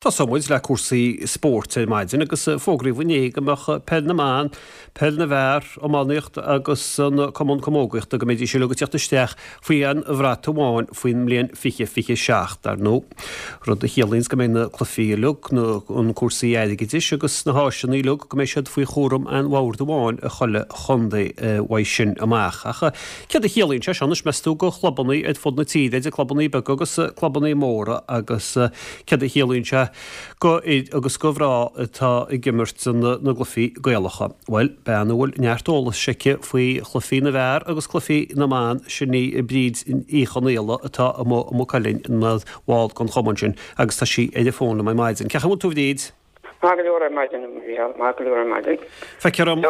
Tosóidh muid le cúrsaí spóirt ar maidin agus fógraíodh inné go mbeadh Peil na mBan, Peil na bhFear, Iománaíocht agus an Cumann Camógaíochta go mbeidís uilig ag teacht isteach faoi aon bhrat amháin faoin mbliain 2027, dar ndóigh. Rud a chiallaíonns go mbeidh na cluichí uilig, na an cúrsaí airgeadais agus na háiseanna uilig go mbeidh siad faoi chúram aon bhord amháin i chuile chontae uaidh sin amach. Ach céard a chiallaíonn sé seo anois meas tú go chlubannaí ar fud na tíre, idir clubannaí beaga agus clubannaí móra agus Céard a chiallaíonn sé go fhir agus go mhná atá ag imirt na gcluichí Gaelacha? Bhuel, bean a bhfuil neart eolais aici faoi chluichí na bhfear agus cluichí na mban, sin í Bríd Uí Chonaola atá amuigh i Maigh Cuilinn ina bhall den chumann sin agus tá sí ar an bhfón liom ar maidin. Cén chaoi a bhfuil tú a Bhríd? Maith go leor ar maidin, a Mhícheáil, maith go leor ar maidin. Feictear dom.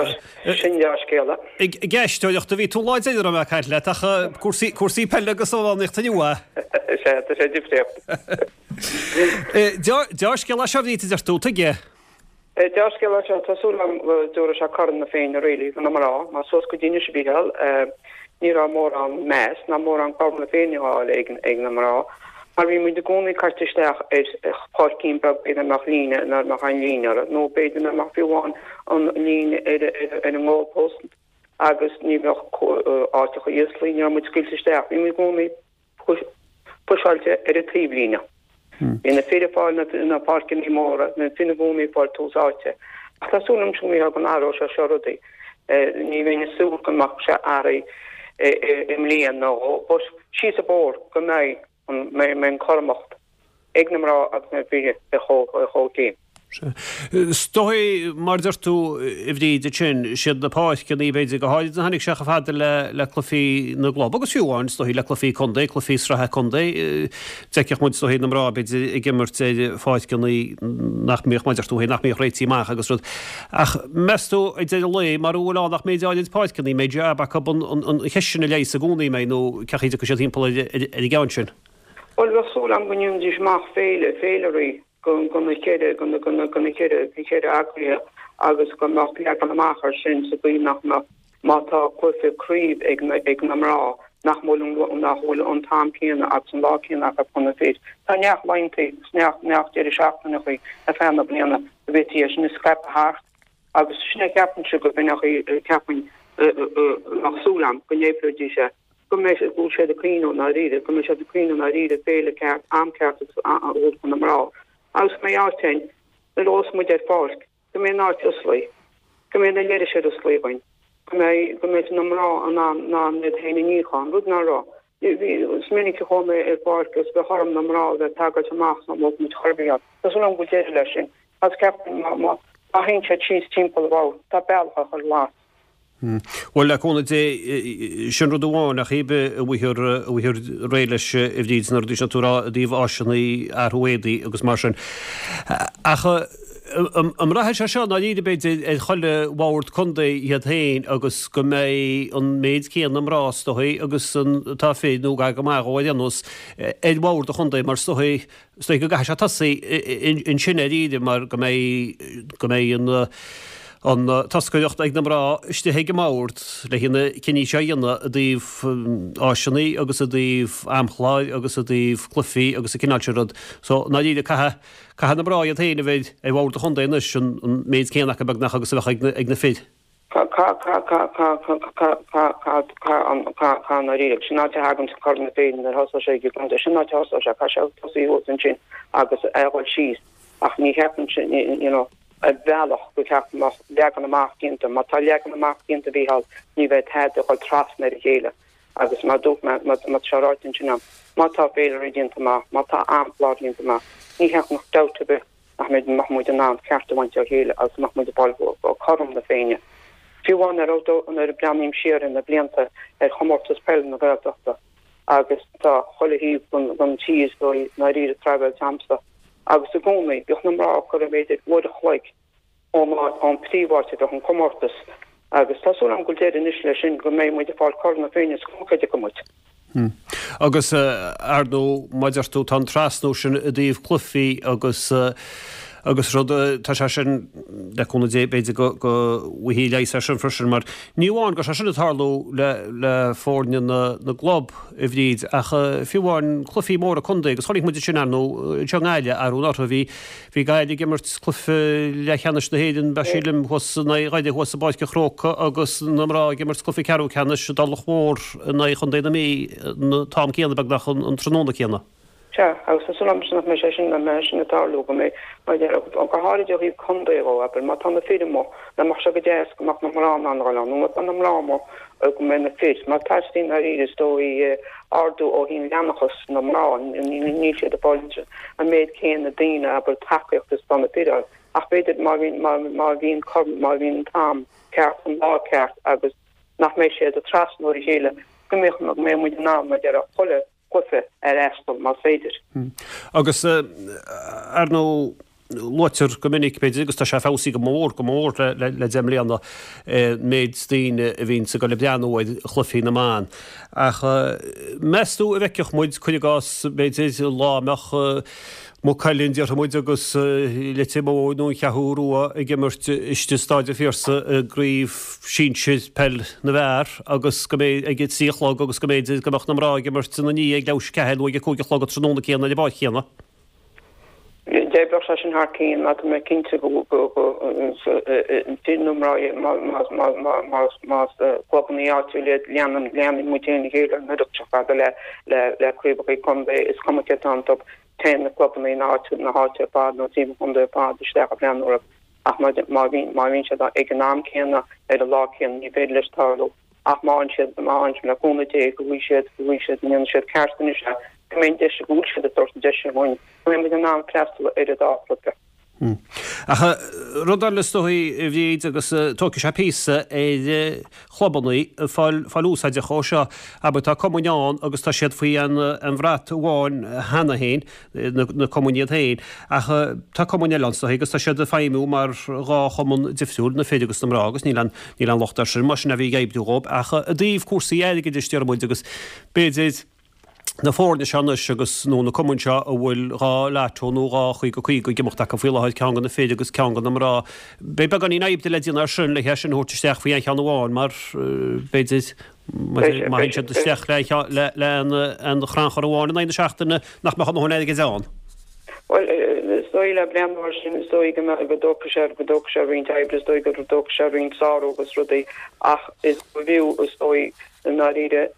Sin dea-scéala. Ag éisteoireacht a bhí tú lá deireadh raibh mé ag caint leat ach cúrsaí, cúrsaí peile agus iománaíochta inniu a? Is ea, tá sé difríocht. Dea-scéala é seo a Bhríd a deir tú, tuige? Dea-scéala é seo, tá súil agam go dtabharfaidh sé Corn na Féinne really do na mná, mar suas go dtí anois a Mhícheáil, ní raibh mórán meas ná mórán Corn na Féinne á fháil ag na mná. Mar bhí muid i gcónaí caite isteach ar pháircín beag ina mbeadh líne, nach mbeadh aon líne uirthi, nó b'fhéidir nach mbeadh fiú amháin an líne ar an goal post agus ní bheadh áiteacha íoslaí, ní raibh muid scaoilte isteach, bhí muid i gcónaí puiseáilte ar an taobhlíne. Bhí na fir ag fáil na páirceanna móra, na fir i gcónaí ag fáil tús áite. Ach tá súil agam a Mhícheáil go n-athróidh sé seo rudaí. Ní bheinn ag súil go mbeadh sé athraithe i mbliain nó dhó, but síos an bóthar go mbeidh an mbeidh an cothromacht ag na mná agus na fir ar chomhchéim. Sea. Is dóigh, mar a deir tú, a Bhríd, ansin, siad na páirceanna, b'fhéidir, go háirid a tháinig sé chomh fada le le cluichí na gclub agus fiú amháin, is dóigh, le cluichí contae, cluichí sraithe contae, d'fheicfeadh muid, is dóigh, na mná, b'fhéidir, ag imirt ar pháirceanna nach mbíodh, mar a deir tú féin, nach mbíodh réitithe amach agus rud. Ach meas tú, ag deireadh an lae, mara bhfuil ann ach méid áirid páirceanna, mbeidh jab acu an cheist sin a leigheas i gcónaí, mbeidh, nó cén chaoi a dtiocfaidh siad timpeall ar an gceann sin? Bhuel, bheadh súil agam go ndéanfaidís amach féile, féilirí go na ceithre, go na, go na, go na ceithre, na ceithre eagraithe agus go mbeadh leagan amach air sin sa gcaoi nach mbeadh, má tá cluiche craoibh ag na, ag na mná, nach bhfuil an, nach bhfuil an t-am céanna agus an lá céanna acu chun na fir. Tá neart laethanta agus neart, neart deireadh seachtaineachaí ar feadh na bliana go bhféadfaí é sin a scaipeadh thart agus sin a cheapaimse go b'in cheapfainn, bheadh súil agam go n-oibreoidís é. go mbeidh, go bhfuil siad ag cuimhneamh i ndáiríre, go mbeidh siad ag cuimhneamh i ndáiríre féile ceart, am ceart agus a thabhairt do na mná agus go mbeidh áit ann nuair a ghabhfas muid ar pháirc, go mbeidh an áit oslaí, go mbeidh na leithris ar osclaí againn, go mbeidh, go mbeidh na mná in ann, in ann iad féin a níochán, rud nach raibh. Bhí, is minic a chuaigh mé ar pháirc agus bheadh orm na mná a bheith ag tagailt amach sna mbeadh muid chor ar bith ann. Tá súil agam go bhfuil deireadh leis sin agus ceapaim má, má, má théann siad síos timpeall an bhoird, tá bealach á chur las. Bhuel, le cúnamh Dé, sin rud amháin, ach cibé a bhfaighfear réidh leis, a Bhríd, na rudaí sin atá tú a rá i dtaobh áiseanna, athrú éadaí agus mar sin. Ach an mbraithfidh sé seo i ndáiríre, b'fhéidir, ar chuile bhord contae iad féin agus go mbeidh an méid céanna mná, is dóigh, agus atá fir, nó gar go maith dhó ar aon nós, ar bhord an chontae, mar is dóigh, Is dóigh go gcaithfidh sé tosaí ansin i ndáiríre mar go mbeidh, go mbeidh an, an toscaireacht ag na mná istigh ag an mbord le na cinní seo a dhéanamh i dtaobh áiseanna agus i dtaobh amchláir agus i dtaobh cluichí agus an cineál sin rud. So, i ndáiríre, caithfidh, caithfidh na mná iad féin a bheith ar bhord an chontae anois, an méid céanna acu beagnach agus a bheadh ag na fir. Caithfidh i ndáiríre, sin áit a thagann Corn na Féinne nuair a thosóidh sé ag an gcontae, sin áit a thosóidh sé, caithfidh sé tosaí thuas ansin agus é a dhul síos ach ní cheapaim sin, you know, ar bhealach go ceapaim go mbeadh leagan amach déanta, má tá leagan amach déanta a Mhícheál, ní bheidh tada ag dhul trasna ar a chéile agus mar dúirt mé, má tá sé ráite ansin agam, má tá féilirí déanta amach, má tá amchlár déanta amach, ní cheapaim nach dabht ar bith nach mbeidh, mbeadh muid in ann ceart a bhaint ó chéile agus mbeadh muid ag fáil cothrom na Féinne. Fiú amháin nuair a, nuair a breathnaím siar ar na blianta ar chomórtas peile na Gaeltachta agus tá chuile thaobh den tír i ndáiríre traibhéilte a'msa agus i gcónaí bhíodh na mná ag cur b'fhéidir uair a chloig ón áit, ón príomháit a bheadh an comórtas agus tá súil agam go bhfuil deireadh anois leis sin, go mbeidh muid ag fáil Corn na Féinne is cuma cad acu muid. Agus, ar ndóigh, mar a deir tú, tá an trasnú sin i dtaobh cluichí agus. Agus rud, tá sé sin, le cúnamh Dé, b'fhéidir go go bhfaighfí leigheas air sin freisin, mar ní amháin go raibh sé sin ag tarlú le le foirne na na gclub, a Bhríd, ach fiú amháin cluichí móra contae, agus chonaic muid sin, ar ndóigh, anseo i nGaillimh arú anuraidh, bhí bhí Gaillimh ag imirt cluiche leathcheannais na hÉireann, ba sílim, thuas in aghaidh Dhoire thuas i bPáirc an Chrócaigh agus na mná ag imirt cluiche ceathrú ceannais i dTulach Mhór in aghaidh Chontae na Mí an t-am céanna beagnach an tráthnóna céanna. Sea, agus tá súil agamsa nach mbeidh sé sin, nach mbeidh sé sin ag tarlú, go mbeidh, mar a déarfá, go háirid ó thaobh contae dhó, abair, má tá na fir amuigh, nach mbeadh sé go deas go mbeadh na mná in ann a dhul ann, nó má tá na mná amuigh, go mbeidh na fir, mar teastaíonn dáiríre, is dóigh, ardú ó thaobh leanúnachas na mná, níl siad ag fáil an méid céanna daoine, abair, tacaíocht is atá na fir a fháil. Ach b'fhéidir má bhíonn, má, má bhíonn, má bhíonn an t-am ceart, an lá ceart agus nach mbeidh siad ag trasnú ar a chéile, go mbeadh, go mbeidh muid in ann, mar a déarfá, chuile chluiche a fhreastal, más féidir. Agus, ar ndóigh, luaitear go minic, b'fhéidir, agus tá sé feabhsaithe go mór, go mór le deich mbliana, an méid daoine a bhíonns ag dul ag breathnú ar chluichí na mban. Ach meas tú an bhfeicfeadh muid, cuir i gcás, b'fhéidir, lá a mbeadh Maigh Cuilinn, déarfaidh muid, agus Leitir Móir nó an Cheathrú Rua ag imirt istigh i Staid an Phiarsaigh i gcraobh sinsir peil na bhfear agus go mbeidh ag a 3 a chlog agus go mb'fhéidir go mbeadh na mná ag imirt ina ndiaidh ag leathuair tar éis a 4 nó ag a 5 a chlog an tráthnóna céanna ar an bpáirc chéanna. D'oibreodh sé sin thar cionn mar tá mé cinnte go fir nó mná más clubanna áitiúil iad leanann muid féin a chéile an oiread seo fada le craobhacha contae is cuma cé atá iontu. Téann na clubanna na háite na háite ar fad nó timpeall an chontae ar fad isteach ag breathnú orthu ach má má bhíonn má bhíonn siad ag an am céanna ar an lá céanna ní féidir leis tarlú ach má fhaigheann siad má fhaigheann siad le cúnamh Dé go bhfaighidh siad go bhfaighidh siad go ndéanfaidh siad ceart anois é go mbeidh an deis go bhfuil siad ag tabhairt an deis sin dhúinn go mbeidh muid in ann freastal ar an dá chluiche. Ach rud eile is dóigh, a Bhríd, agus tógfaidh sé píosa ar chlubanna fáil fáil úsáideach ó seo. Abair, tá cumainn ann agus tá siad faoi an bhrat amháin cheana féin, na cumainn iad féin, ach tá cumainn eile ann is dóigh agus tá siad ag feidhmiú mar dhá chumann difriúil, na fir agus na mná, agus níl aon níl aon locht air sin, más sin a bhí ag oibriú dhóibh. Ach i dtaobh cúrsaí airgeadais, déarfaidh muid, agus b'fhéidir, na foirne seo anois agus, nó na cumainn seo a bhfuil 2 lotto nó 2 50 50 ag imeacht acu faoi láthair, ceann do na fir agus ceann do na mná. Beidh beagáinín oibre le déanamh air sin le hé sin a thabhairt isteach faoi aon cheann amháin mar, b'fhéidir, má théann siad isteach le le aon chrannchur amháin in aghaidh na seachtaine nach mbeadh a ndóthain airgid ann. Bhuel, is dóigh le breathnú air sin, is dóigh go mbeadh, go dtógfaidh sé, go dtógfaidh sé roinnt oibre, is dóigh go dtógfaidh sé roinnt sárú agus rudaí ach is b'fhiú, is dóigh, i ndáiríre,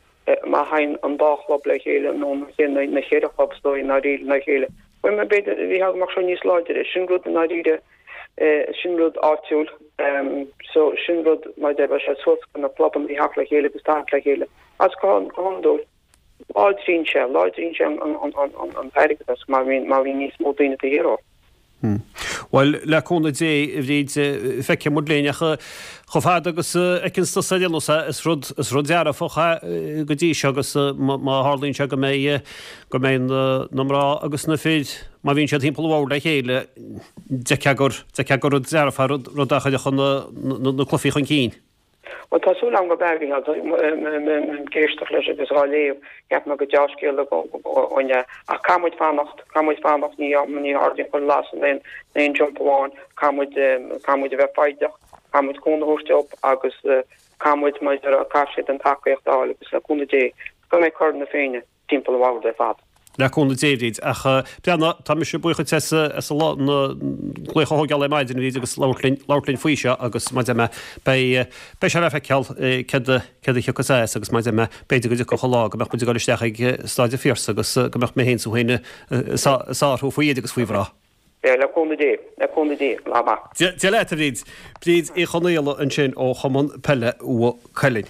má théann an dá chlub le chéile, nó na ceithre chlub is dóigh, i ndáiríre, le chéile, bhuel, b'fhéidir, bhí go mbeadh sé níos láidre. Sin rud i ndáiríre, sin rud áitiúil, so sin rud, mar a deir, bheadh sé suas go na clubanna a theacht le chéile agus tarraingt le chéile. Agus go hiondúil, láidríonn sé, láidríonn sé an t-airgeadas má bhíonn, má bhíonn níos mó daoine taobh thiar dhó. Bhuel, le cúnamh Dé, a Bhríd, feicfidh muid linn, ach chomh fada agus a fheiceanns tusa ar aon nós é, is rud, is rud dearfach é go dtí seo agus má tharlaíonn sé go mbeidh, go mbeidh na mná agus na fir, má bhíonn siad thimpeall an bhoird le chéile, d'fheicfeá gur, d'fheicfeá gur rud dearfach é, rud, rud a chuirfeadh na, na cluichí chun cinn. Bhuel, tá súil agam gurb ea, a Mhícheáil. Ag éisteacht leis agus á léamh, cheap mé gur deá-scéal againn é. Ach caithfidh muid fanacht, caithfidh muid fanacht, ní ní ardaíonn chuile lasair in aon aon jump amháin. Caithfidh muid, caithfidh muid a bheith foighdeach, caithfidh muid cúnamh a thabhairt dóibh agus caithfidh muid, mar a déarfá, caithfidh siad an tacaíocht a fháil agus le cúnamh Dé go mbeidh Corn na Féinne timpeall an bhoird ar fad. Le cúnamh Dé, a Bhríd. Ach breathnaigh, tá mise buíoch duit as an glaoch a thógáil ar maidin, a Bhríd, agus labhairt linn, labhairt linn faoi seo agus mar a deir mé, beidh, beidh sé le feiceáil céard a, céard a thiocfas as agus mar a deir mé, b'fhéidir go dtiocfadh an lá go mbeadh muid ag dul isteach ag Staid an Phiarsaigh agus go mbeadh mé féin is tú féin ag sárú faoi fhir agus faoi mhná. Le cúnamh Dé, le cúnamh Dé, lá maith. Dia leat, a Bhríd. Bríd Uí Chonaola ansin ó Chumann Peile Mhaigh Cuilinn.